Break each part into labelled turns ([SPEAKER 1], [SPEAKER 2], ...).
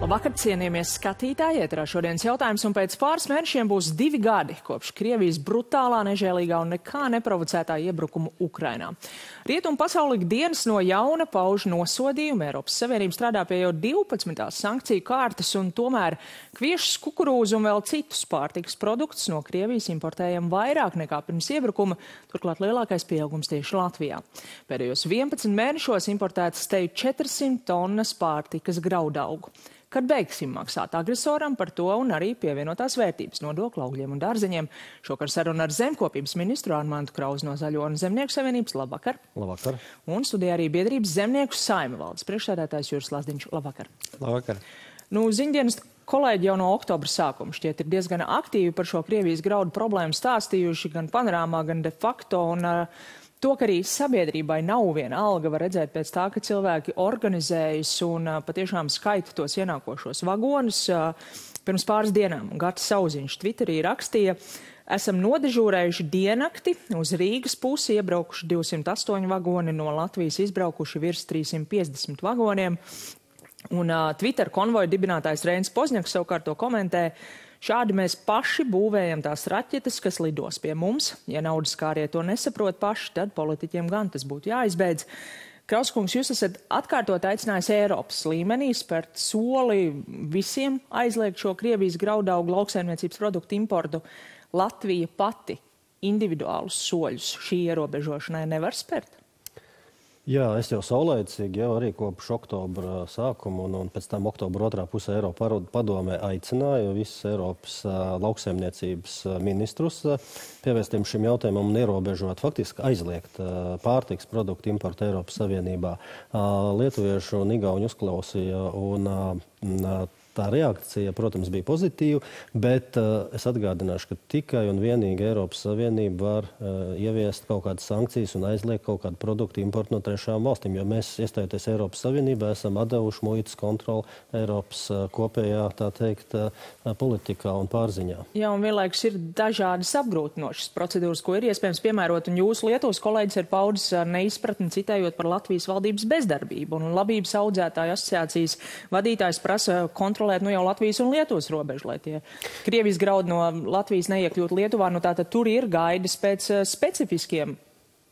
[SPEAKER 1] Labvakar, cienījamies skatītāji, ēterā šodienas jautājums, un pēc pāris mēnešiem būs 2 gadi kopš Krievijas brutālā, nežēlīgā un nekā neprovocētā iebrukuma Ukrainā. Rietumu pasauli ikdienas no jauna pauž nosodījumu. Eiropas Savienība strādā pie jau 12. sankciju kārtas, un tomēr kviešus, kukurūzu un vēl citus pārtikas produktus no Krievijas importējam vairāk nekā pirms iebrukuma, turklāt lielākais pieaugums tieši Latvijā. Pēdējos 11 mēnešos importētas teju 400 tonnas pārtikas graudaugu. Kad beigsim maksāt agresoram par to un arī pievienotās vērtības nodokļu augļiem un dārzeņiem. Šokar saruna ar zemkopības ministru Armantu Krauzi no Zaļo un Zemnieku savienības. Labvakar.
[SPEAKER 2] Labvakar.
[SPEAKER 1] Un studijā arī biedrības Zemnieku saima valdes priekšsēdētājs Juris Lazdiņš. Labvakar.
[SPEAKER 2] Labvakar.
[SPEAKER 1] Ziņdienas kolēģi jau no oktobra sākuma šķiet ir diezgan aktīvi par šo Krievijas graudu problēmu stāstījuši gan panorāmā, gan de facto. To, ka arī sabiedrībai nav viena alga, var redzēt pēc tā, ka cilvēki organizējas un patiešām skaita tos ienākošos vagonus. Pirms pāris dienām Gatis Sauziņš Twitterī rakstīja: esam nodežūrējuši diennakti, uz Rīgas pusi iebraukuši 208 vagoni, no Latvijas izbraukuši virs 350 vagoniem. Un Twitter konvoja dibinātājs Reinis Pozņaks savukārt to komentē: šādi mēs paši būvējam tās raķetes, kas lidos pie mums. Ja naudas kārie to nesaprot paši, tad politiķiem gan tas būtu jāizbeidz. Krauskungs, jūs esat atkārtot aicinājis Eiropas līmenī spērt soli visiem aizliegt šo Krievijas graudaugu lauksaimniecības produktu importu. Latvija pati individuālus soļus šī ierobežošanai nevar spērt?
[SPEAKER 2] Jā, es jau saulēcīgi jau arī kopš oktobra sākuma un pēc tam oktobra otrā pusē Eiropa padomē aicināju visus Eiropas lauksaimniecības ministrus pievērsties šim jautājumam un ierobežot, faktiski aizliegt pārtikas produktu importu Eiropas Savienībā. Lietuviešu un igauņu uzklausīja un tā reakcija, protams, bija pozitīva, bet es atgādināšu, ka tikai un vienīgi Eiropas Savienība var ieviest kaut kādas sankcijas un aizliegt kaut kādu produktu importu no trešām valstīm, jo mēs, iestājoties Eiropas Savienībā, esam atdevuši muitas kontroli Eiropas kopējā, tā teikt, politikā un pārziņā.
[SPEAKER 1] Jā, un vienlaikus ir dažādas apgrūtinošas procedūras, ko ir iespējams piemērot, un jūsu Lietuvas kolēģis ir paudis neizpratni citējot par Latvijas valdības bezdarbību, un labības audzētāju asociācijas vadītājs prasa kontrolēt jau Latvijas un Lietuvas robežu, lai tie Krievijas graudi no Latvijas neiekļūt Lietuvā. Tātad tur ir gaidas pēc specifiskiem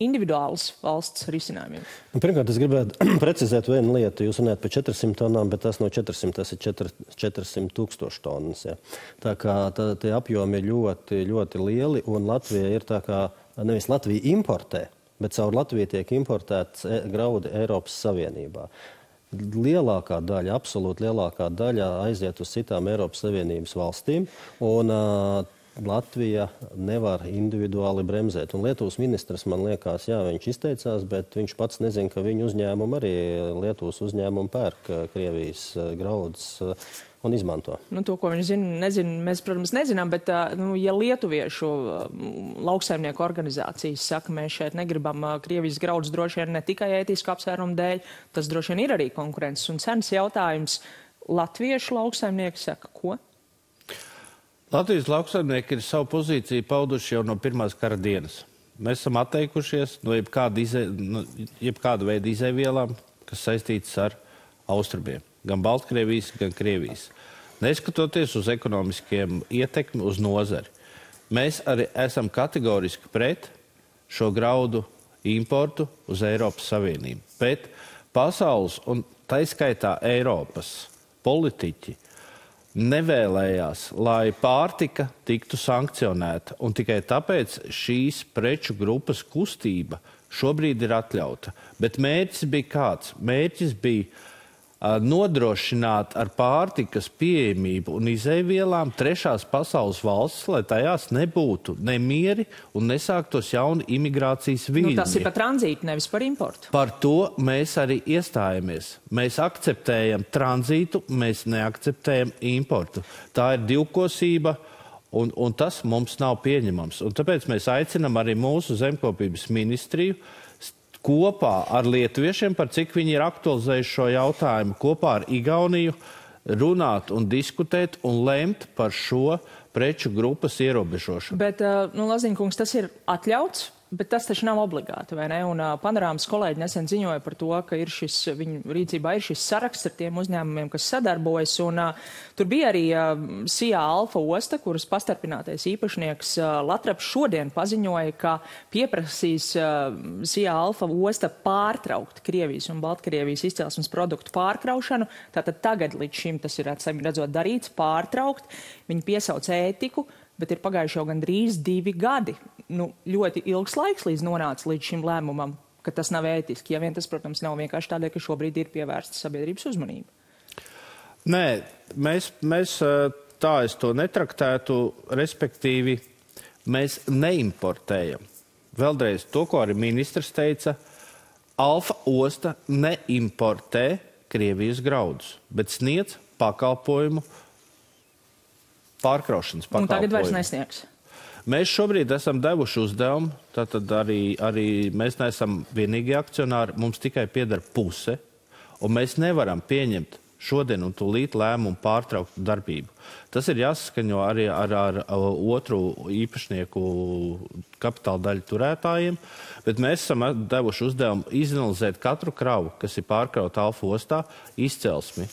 [SPEAKER 1] individuālas valsts risinājumiem.
[SPEAKER 2] Pirmkārt, es gribētu precizēt vienu lietu. Jūs runājat par 400 tonām, bet tas no 400, tas ir 400 000 tonnas. Ja. Tā kā tie apjomi ir ļoti, ļoti lieli, un Latvija ir tā kā, nevis Latvija importē, bet caur Latviju tiek importēts graudi Eiropas Savienībā. Lielākā daļa, absolūti lielākā daļa aiziet uz citām Eiropas Savienības valstīm, un Latvija nevar individuāli bremzēt. Un Lietuvas ministrs, man liekas, jā, viņš izteicās, bet viņš pats nezina, ka viņu uzņēmumu arī Lietuvas uzņēmumu pērk Krievijas graudus un izmanto.
[SPEAKER 1] To, ko viņš nezina, mēs, protams, nezinām, bet ja lietuviešu lauksaimnieku organizācijas saka, mēs šeit negribam Krievijas graudus droši vien ne tikai ētisku apsvērumu dēļ, tas droši vien ir arī konkurences un cenas jautājums. Latviešu lauksaimnieki saka, ko?
[SPEAKER 3] Latvijas lauksaimnieki ir savu pozīciju pauduši jau no pirmās kara dienas. Mēs esam atteikušies no jebkāda veida izēvielām, kas saistītas ar austrumiem. Gan Baltkrievijas, gan Krievijas. Neskatoties uz ekonomiskiem ietekmi uz nozari. Mēs arī esam kategoriski pret šo graudu importu uz Eiropas Savienību. Bet pasaules un taiskaitā Eiropas politiķi nevēlējās, lai pārtika tiktu sankcionēta. Un tikai tāpēc šīs preču grupas kustība šobrīd ir atļauta. Bet mērķis bija kāds? Mērķis bija nodrošināt ar pārtikas pieejamību un izēvielām trešās pasaules valstis, lai tajās nebūtu nemieri un nesāktos jauni imigrācijas viļņi.
[SPEAKER 1] Tas ir par tranzītu, nevis par importu.
[SPEAKER 3] Par to mēs arī iestājamies. Mēs akceptējam tranzītu, mēs neakceptējam importu. Tā ir divkosība, un tas mums nav pieņemams. Un tāpēc mēs aicinam arī mūsu zemkopības ministriju kopā ar lietuviešiem, par cik viņi ir aktualizējuši šo jautājumu, kopā ar Igauniju runāt un diskutēt un lemt par šo preču grupas ierobežošanu.
[SPEAKER 1] Bet, Laziņkungs, tas ir atļauts Bet tas taču nav obligāti, vai ne? Un Panorāmas kolēģi nesen ziņoja par to, ka viņu rīcībā ir šis saraksts ar tiem uzņēmumiem, kas sadarbojas. Un tur bija arī SIA Alfa osta, kuras pastarpinātais īpašnieks Latraps šodien paziņoja, ka pieprasīs SIA Alfa osta pārtraukt Krievijas un Baltkrievijas izcelsmes produktu pārkraušanu. Tātad tagad līdz šim tas ir redzot darīts, pārtraukt. Viņi piesauc ētiku, bet ir pagājuši jau gandrīz 2 gadi. Ļoti ilgs laiks līdz nonāca līdz šim lēmumam, ka tas nav ētiski. Ja vien tas, protams, nav vienkārši tādēļ, ka šobrīd ir pievērsta sabiedrības uzmanība.
[SPEAKER 3] Nē, mēs tā es to netraktētu, respektīvi mēs neimportējam. Vēlreiz to, ko arī ministrs teica, Alfa osta neimportē Krievijas graudus, bet sniedz pakalpojumu, pārkraušanas pakalpojumu.
[SPEAKER 1] Un tagad vairs nesniegs.
[SPEAKER 3] Mēs šobrīd esam devuši uzdevumu, tātad arī mēs neesam vienīgi akcionāri, mums tikai pieder puse, un mēs nevaram pieņemt šodien un tūlīt lēmumu pārtraukt darbību. Tas ir jāsaskaņo arī ar otru īpašnieku kapitāla daļu turētājiem, bet mēs esam devuši uzdevumu izanalizēt katru kravu, kas ir pārkrauta Alfa ostā, izcelsmi,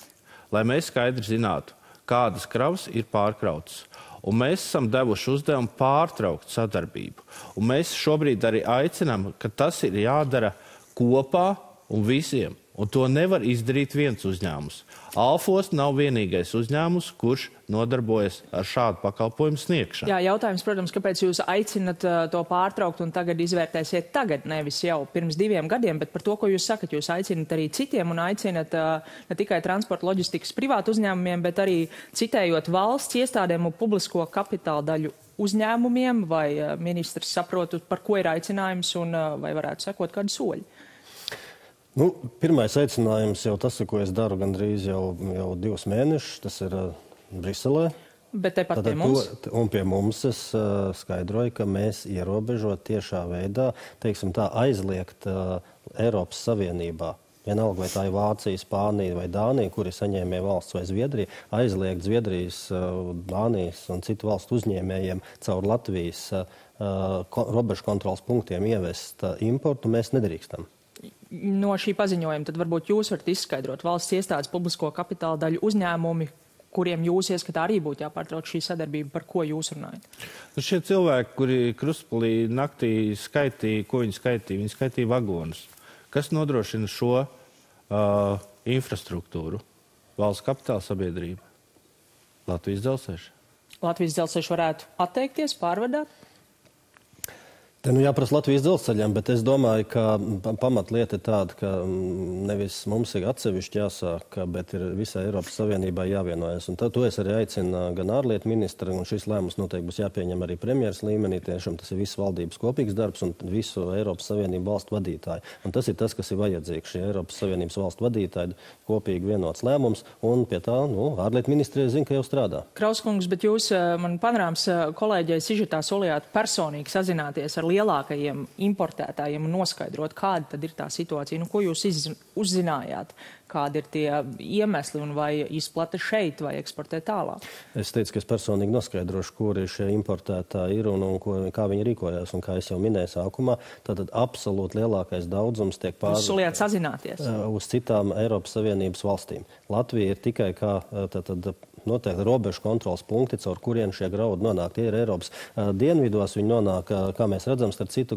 [SPEAKER 3] lai mēs skaidri zinātu, kādas kravas ir pārkrautas. Un mēs esam devuši uzdevumu pārtraukt sadarbību. Un mēs šobrīd arī aicinām, ka tas ir jādara kopā un visiem. Un to nevar izdarīt viens uzņēmums. Alfa osta nav vienīgais uzņēmums, kurš nodarbojas ar šādu pakalpojumu sniegšanu.
[SPEAKER 1] Jā, jautājums, protams, kāpēc jūs aicinat to pārtraukt un tagad izvērtēsiet tagad, nevis jau pirms 2 gadiem, bet par to, ko jūs sakat, jūs aicinat arī citiem un aicinat ne tikai transporta loģistikas privātu uzņēmumiem, bet arī citējot valsts iestādēm un publisko kapitāla daļu uzņēmumiem, vai ministrs saprotu, par ko ir aicinājums un vai varētu sekot kādu soļu?
[SPEAKER 2] Pirmais aicinājums jau tas, ko es daru gandrīz jau 2 mēnešus, tas ir Briselē.
[SPEAKER 1] Bet tepat pie mums?
[SPEAKER 2] Un pie mums es skaidroju, ka mēs ierobežot tiešā veidā, teiksim tā, aizliegt Eiropas Savienībā. Vienalga, vai tā ir Vācija, Spānija vai Dānija, kuri saņēmē valsts vai Zviedrija, aizliegt Zviedrijas, Dānijas un citu valstu uzņēmējiem caur Latvijas robežu kontrolas punktiem ievest importu, mēs nedrīkstam.
[SPEAKER 1] No šī paziņojuma tad varbūt jūs varat izskaidrot valsts iestādes publisko kapitāla daļu uzņēmumi, kuriem jūs ieskatā arī būtu jāpārtrauc šī sadarbība, par ko jūs runājat?
[SPEAKER 3] Šie cilvēki, kuri Krustpilī naktī skaitīja, ko viņi skaitīja? Viņi skaitīja vagonus. Kas nodrošina šo infrastruktūru? Valsts kapitāla sabiedrība. Latvijas dzelzceļš.
[SPEAKER 1] Latvijas dzelzceļš varētu atteikties, pārvadāt?
[SPEAKER 2] Te jāprasa Latvijas dzelzceļam, bet es domāju, ka pamatlieta ir tāda, ka nevis mums ir atsevišķi jāsāk, bet ir visai Eiropas Savienībai jāvienojas. Un to es arī aicinu gan ārlietu ministru, un šis lēmums noteikti būs jāpieņem arī premjeras līmenī. Tiešām tas ir visu valdības kopīgs darbs un visu Eiropas Savienību valstu vadītāju. Un tas ir tas, kas ir vajadzīgs. Šie Eiropas Savienības valstu vadītāji kopīgi vienots lēmums, un pie tā ārlietu ministrija zina, ka jau strādā.
[SPEAKER 1] Krauskungs, bet jūs man Panorāmas kolēģei sižetā solījāt personīgi sazināties ar lielākajiem importētājiem un noskaidrot, kāda tad ir tā situācija. Ko jūs uzzinājāt? Kādi ir tie iemesli un vai izplata šeit vai eksportē tālāk? Es
[SPEAKER 2] teicu, ka es personīgi noskaidrošu, kuri šie importētāji ir un kā viņi rīkojās. Un kā es jau minēju sākumā, tad absolūti lielākais daudzums tiek
[SPEAKER 1] Jūs solījāt sazināties?
[SPEAKER 2] Uz citām Eiropas Savienības valstīm. Latvija ir tikai kā noteikti robežu kontrolas punkti, caur kurien šie graudi nonāk. Tie ir Eiropas dienvidos, viņi nonāk, kā mēs redzam, starp citu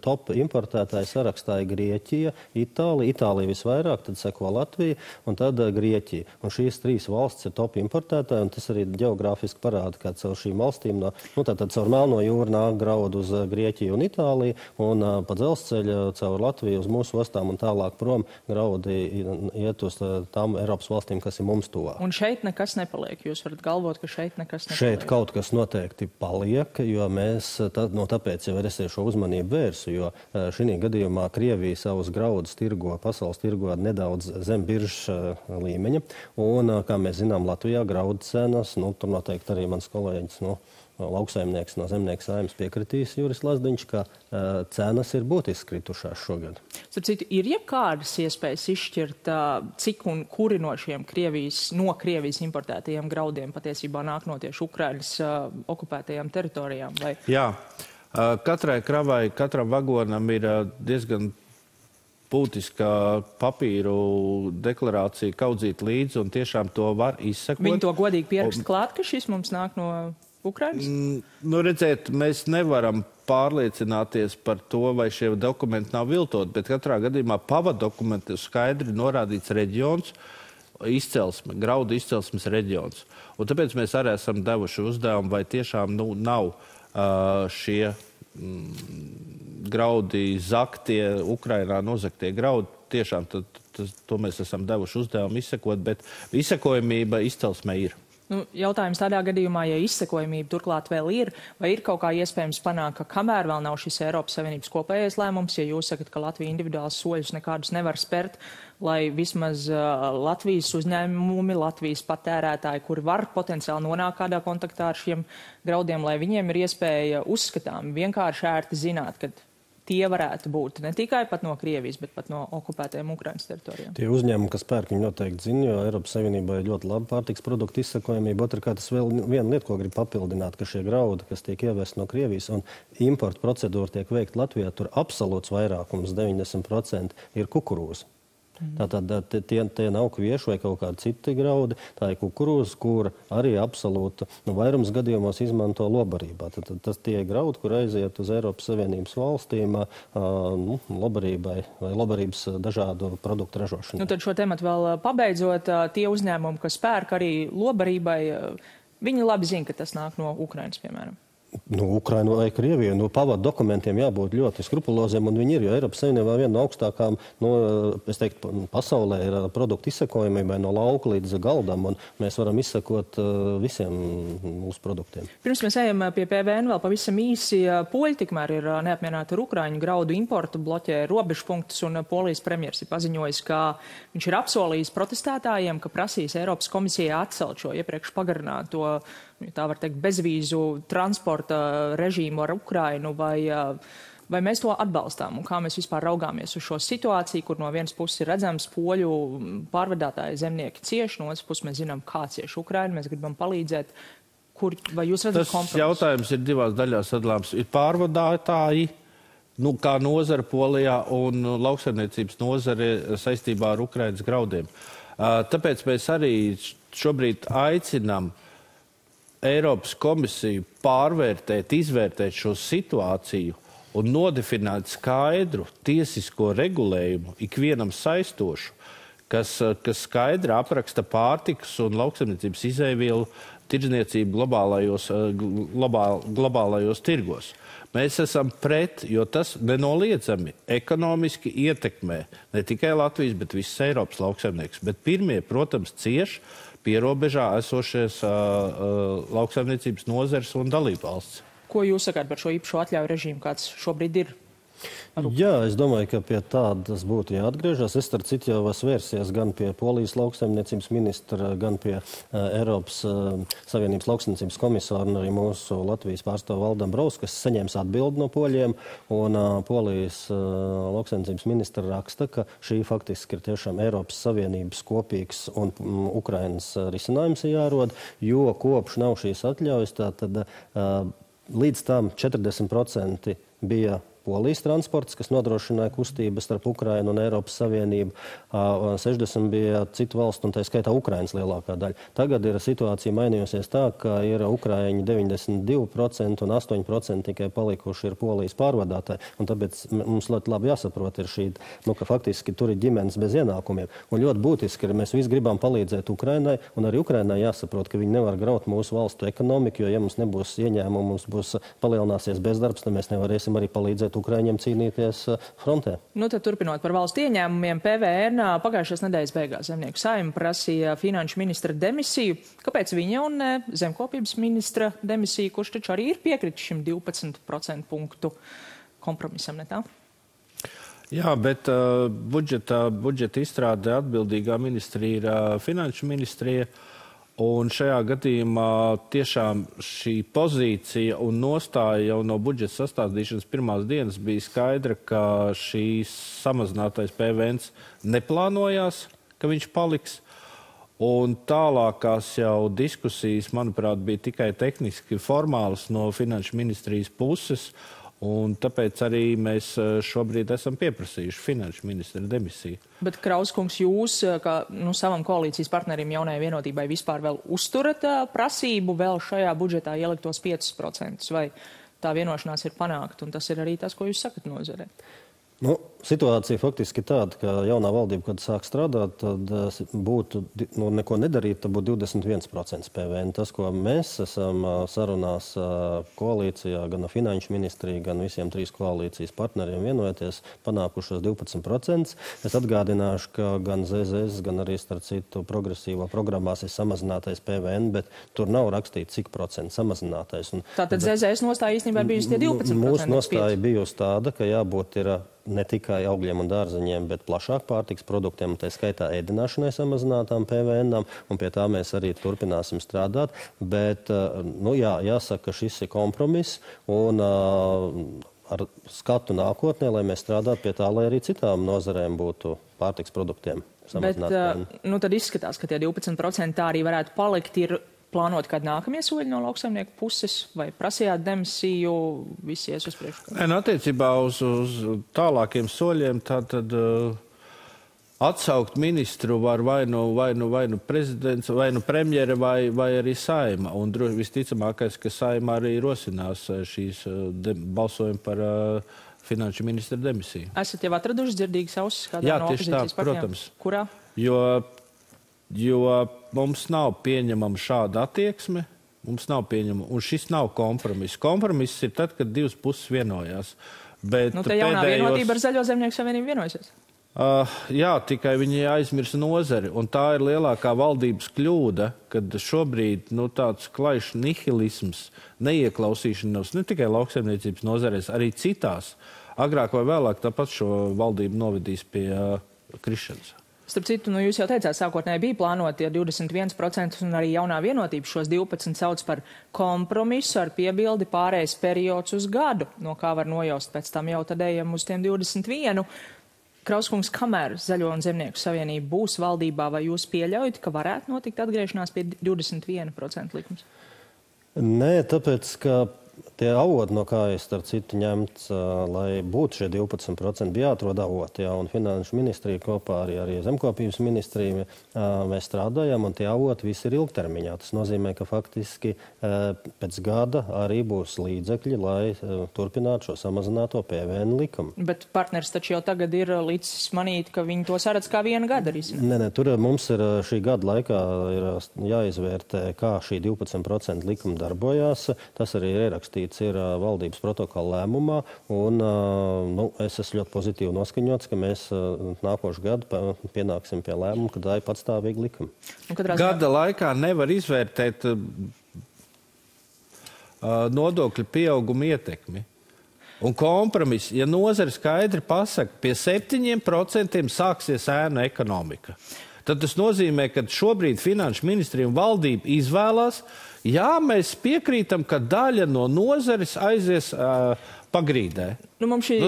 [SPEAKER 2] top importētāju sarakstā ir Grieķija, Itālija. Itālija visvairāk, tad seko Latvija un tad Grieķija. Un šīs 3 valstis ir top importētāji, un tas arī ģeogrāfiski parāda, ka caur šīm valstīm, tātad caur Melno jūru nāk graudu uz Grieķiju un Itāliju, un pa dzelzceļu caur Latviju uz mūsu ostām un tālāk prom graudi iet uz tām Eiropas valstīm, kas ir mums tuvāk.
[SPEAKER 1] Un šeit nekas nepaliek. Jūs varat galvot, ka šeit nekas nepaliek.
[SPEAKER 2] Šeit kaut kas noteikti paliek, jo mēs tāpēc jau es šo uzmanību vērsu, jo šī gadījumā Krievija savus graudus tirgo, pasaules tirgo nedaudz zem biržas līmeņa. Un, kā mēs zinām, Latvijā graudu cenas, tur noteikti arī mans kolēģis, lauksaimnieks no Zemnieku saimnes piekritīs Juris Lazdiņš, ka cenas ir būtiski kritušās šogad.
[SPEAKER 1] Starp citu, ir jebkādas iespējas izšķirt, cik un kuri no šiem Krievijas importētajiem graudiem patiesībā nāk no tieši Ukrainas okupētajām teritorijām? Vai?
[SPEAKER 3] Jā, Katrai kravai, katram vagonam ir diezgan būtiska papīru deklarācija kaudzīt līdzi, un tiešām to var izsekot.
[SPEAKER 1] Viņi to godīgi pierakst klāt, ka šis mums nāk no Ukrainas?
[SPEAKER 3] Nu, redziet, mēs nevaram pārliecināties par to, vai šie dokumenti nav viltot, bet katrā gadījumā pavadokumenti skaidri norādīts reģions, izcelsme, graudu izcelsmes reģions. Un tāpēc mēs arī esam devuši uzdevumu, vai tiešām nav šie graudi zaktie, Ukrainā nozaktie graudi. Tiešām to mēs esam devuši uzdevumu izsekot, bet izsekojamība izcelsmē ir.
[SPEAKER 1] Nu, jautājums tādā gadījumā, ja izsekojamība turklāt vēl ir, vai ir kaut kā iespējams panākt, ka kamēr vēl nav šis Eiropas Savienības kopējais lēmums, ja jūs sakat, ka Latvija individuāls soļus nekādus nevar spērt, lai vismaz Latvijas uzņēmumi, Latvijas patērētāji, kuri var potenciāli nonākt kādā kontaktā ar šiem graudiem, lai viņiem ir iespēja uzskatām vienkārši ērti zināt, ka tie varētu būt ne tikai pat no Krievijas, bet pat no okupētajiem Ukrainas teritorijām.
[SPEAKER 2] Tie uzņēmumi, kas pērk, viņi noteikti zina, jo Eiropas Savienībā ir ļoti laba pārtiks produktu izsakojamība. Otrkārt, tas vēl viena lieta, ko grib papildināt, ka šie graudi, kas tiek ievesti no Krievijas un importa procedūra tiek veikta Latvijā, tur absolūts vairākums, 90% ir kukurūza. Tātad tie nav kvieši vai kaut kādi citi graudi, tā ir kukurūza, kura arī absolūta vairums gadījumos izmanto lobarībā. Tad tas tie graudi, kur aiziet uz Eiropas Savienības valstīm lobarībai vai lobarības dažādu produktu ražošanai.
[SPEAKER 1] Nu, tad šo tematu vēl pabeidzot, tie uzņēmumi, kas pērk arī lobarībai, viņi labi zina, ka tas nāk no Ukrainas, piemēram.
[SPEAKER 2] Ukraina vai Krievija, pavadu dokumentiem jābūt ļoti skrupuloziem, un viņi ir, jo Eiropas Savienībā viena no augstākām, es teiktu, pasaulē ir produktu izsekojamībai no lauka līdz galdam, un mēs varam izsekot visiem mūsu produktiem.
[SPEAKER 1] Pirms mēs ejam pie PVN vēl pavisam īsi, poļi tikmēr ir neapmierināti ar Ukraiņu graudu importu, bloķē robežpunktus, un Polijas premjers ir paziņojis, ka viņš ir apsolījis protestētājiem, ka prasīs Eiropas komisijai atcelt šo iepriekš pagarināto, tā var teikt, bezvīzu transporta režīmu ar Ukrainu, vai mēs to atbalstām un kā mēs vispār raugāmies uz šo situāciju, kur no vienas puses ir redzams poļu pārvadātāji zemnieki cieši, no otras puses mēs zinām, kā cieši Ukraina, mēs gribam palīdzēt. Vai jūs redzat kompromisu?
[SPEAKER 3] Tas jautājums ir divās daļās sadalāms. Ir pārvadātāji, kā nozara Polijā un lauksaimniecības nozare saistībā ar Ukrainas graudiem. Tāpēc mēs arī šobrīd aicinām Eiropas komisiju pārvērtēt, izvērtēt šo situāciju un nodefinēt skaidru tiesisko regulējumu, ikvienam saistošu, kas skaidri apraksta pārtikas un lauksaimniecības izēvielu tirdzniecību globālajos tirgos. Mēs esam pret, jo tas nenoliedzami ekonomiski ietekmē ne tikai Latvijas, bet visas Eiropas lauksaimnieks. Bet pirmie, protams, cieši pierobežā esošies lauksaimniecības nozares un dalībvalsts.
[SPEAKER 1] Ko jūs sakāt par šo īpašo atļauju režīmu, kāds šobrīd ir?
[SPEAKER 2] Jā, es domāju, ka pie tādas būtu jāatgriežas. Es starp citu jau esmu vērsies gan pie Polijas lauksaimniecības ministra, gan pie Eiropas Savienības lauksaimniecības komisāra un arī mūsu Latvijas pārstāvu Valdam Braus, kas saņems atbildi no poļiem. Un Polijas lauksaimniecības ministra raksta, ka šī faktiski ir tiešām Eiropas Savienības kopīgs un Ukrainas risinājums jārod, jo kopš nav šīs atļaujas, tad līdz tam 40% bija Polijas transports, kas nodrošināja kustības starp Ukrainu un Eiropas Savienību. 60 bija citu valstu, un tā skaitā Ukrainas lielākā daļa. Tagad ir situācija mainījusies tā, ka ir Ukraiņi 92% un 8% tikai palikuši ir Polijas pārvadātāji. Un tāpēc mums ļoti labi jāsaprot ir šī, ka faktiski tur ir ģimenes bez ienākumiem. Un ļoti būtiski ir, mēs visi gribam palīdzēt Ukrainai, un arī Ukrainai jāsaprot, ka viņi nevar graut mūsu valstu ekonomiku, jo ja mums nebūs ieņēmumu, mums būs palielināsies bezdarbs, tad mēs nevarēsim arī palīdzēt Ukraiņiem cīnīties frontē.
[SPEAKER 1] Tad turpinot par valsts ieņēmumiem, PVN pagājušās nedēļas beigās Zemnieku saima prasīja finanšu ministra demisiju. Kāpēc viņa un zemkopības ministra demisija, kurš taču arī ir piekritis šim 12% punktu kompromisam, ne tā?
[SPEAKER 3] Jā, bet budžeta izstrādē atbildīgā ministrija ir finanšu ministrija. Un šajā gadījumā tiešām šī pozīcija un nostāja jau no budžeta sastādīšanas pirmās dienas bija skaidra, ka šīs samazinātais PVN neplānojās, ka viņš paliks. Un tālākās jau diskusijas, manuprāt, bija tikai tehniski formālas no Finanšu ministrijas puses, un tāpēc arī mēs šobrīd esam pieprasījuši Finanšu ministra demisiju.
[SPEAKER 1] Bet, Krauskungs, jūs, kā savam koalīcijas partnerim Jaunajai vienotībai, vispār vēl uzturat prasību vēl šajā budžetā ieliktos 5%, vai tā vienošanās ir panākt, un tas ir arī tas, ko jūs sakat nozarē?
[SPEAKER 2] Situācija faktiski tāda, ka jaunā valdība, kad sāk strādāt, tad būtu, neko nedarīt, tad būtu 21% PVN. Tas, ko mēs esam sarunās koalīcijā, gan Finanšu ministrija, gan visiem 3 koalīcijas partneriem vienojoties, panākušos 12%. Es atgādināšu, ka gan ZZS, gan arī starp citu progresīvo programmās ir samazinātais PVN, bet tur nav rakstīts, cik procentu samazinātais.
[SPEAKER 1] Tātad ZZS nostāja īstenībā bijusi tie 12%?
[SPEAKER 2] Mūsu nostāja bijusi tāda, ka jābūt ir ne tikai augļiem un dārzeņiem, bet plašāk pārtiks produktiem, un tā skaitā ēdināšanai samazinātām PVN-ām, un pie tā mēs arī turpināsim strādāt. Bet, jāsaka, ka šis ir kompromiss, un ar skatu nākotnē, lai mēs strādātu pie tā, lai arī citām nozarēm būtu pārtiks produktiem samazināt PVN.
[SPEAKER 1] Bet, tad izskatās, ka tie 12% tā arī varētu palikt, ir plānot kādu nākamie soļi no lauksaimnieku puses, vai prasījāt demisiju, visi ies uz priekšu?
[SPEAKER 3] Attiecībā uz tālākiem soļiem, tātad atsaukt ministru var vai nu prezidents, vai nu premjere, vai arī Saeima. Un visticamākais, ka Saeima arī rosinās šīs balsojumu par Finanšu ministra demisiju.
[SPEAKER 1] Esat jau atraduši dzirdīgas ausis kādā no opozīcijas partijām?
[SPEAKER 3] Protams.
[SPEAKER 1] Kurā?
[SPEAKER 3] Jo mums nav pieņemama šāda attieksme, un šis nav kompromiss. Kompromiss ir tad, kad divas puses vienojās. Bet
[SPEAKER 1] te jaunā vienotība ar Zaļo zemnieku savienību vienojusies?
[SPEAKER 3] Jā, tikai viņi aizmirsa nozari, un tā ir lielākā valdības kļūda, kad šobrīd tāds klaišs nihilisms, neieklausīšanās ne tikai lauksaimniecības nozarēs, arī citās. Agrāk vai vēlāk tāpat šo valdību novedīs pie krišanas.
[SPEAKER 1] Starp citu, jūs jau teicāt, sākotnēji bija plānoti 21%, un arī jaunā vienotība šos 12 sauc par kompromisu ar piebildi pārējais periods uz gadu, no kā var nojaust pēc tam jau tad ejam uz tiem 21. Krauskungs, kamēr Zaļo un Zemnieku savienība būs valdībā, vai jūs pieļaujat, ka varētu notikt atgriešanās pie 21% likums?
[SPEAKER 2] Nē, tāpēc, ka tie avoti, no kā es starp citu ņemts, lai būtu šie 12%, bija jāatrod avoti, un Finanšu ministrija kopā arī Zemkopības ministrija mēs strādājam, un tie avoti visi ir ilgtermiņā. Tas nozīmē, ka faktiski pēc gada arī būs līdzekļi, lai turpinātu šo samazināto PVN likumu.
[SPEAKER 1] Bet partners taču jau tagad ir līdz manīt, ka viņi to saredz kā viena gada risināt.
[SPEAKER 2] Nē, tur mums ir šī gada laikā ir jāizvērtē, kā šī 12% likuma darbojās. Tas arī ir ierakstīts ir valdības protokola lēmumā, un es esmu ļoti pozitīvi noskaņots, ka mēs nākošu gadu pienāksim pie lēmuma, ka tā ir patstāvīga likuma.
[SPEAKER 3] Gada laikā nevar izvērtēt nodokļu pieauguma ietekmi. Un kompromiss, ja nozare skaidri pasaka, pie 7% sāksies ēnu ekonomika, tad tas nozīmē, ka šobrīd Finanšu ministrija un valdība izvēlās, jā, mēs piekrītam, ka daļa no nozares aizies pagrīdē.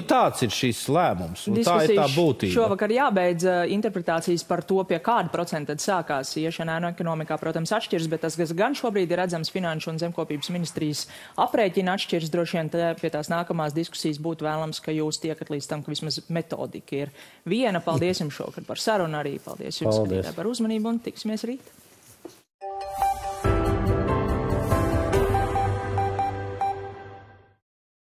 [SPEAKER 3] Tāds ir šis lēmums, un tā ir tā būtība.
[SPEAKER 1] Šovakar jābeidz interpretācijas par to, pie kāda procenta tad sākās iešana ēnu ekonomikā, protams, atšķirs, bet tas, kas gan šobrīd ir redzams Finanšu un Zemkopības ministrijas aprēķina atšķirs, droši vien pie tās nākamās diskusijas būtu vēlams, ka jūs tiekat līdz tam, ka vismaz metodika ir viena. Paldies jums šovakar par sarunu arī. Paldies jums, skatītāji, par uzmanību, un tiksimies rīt.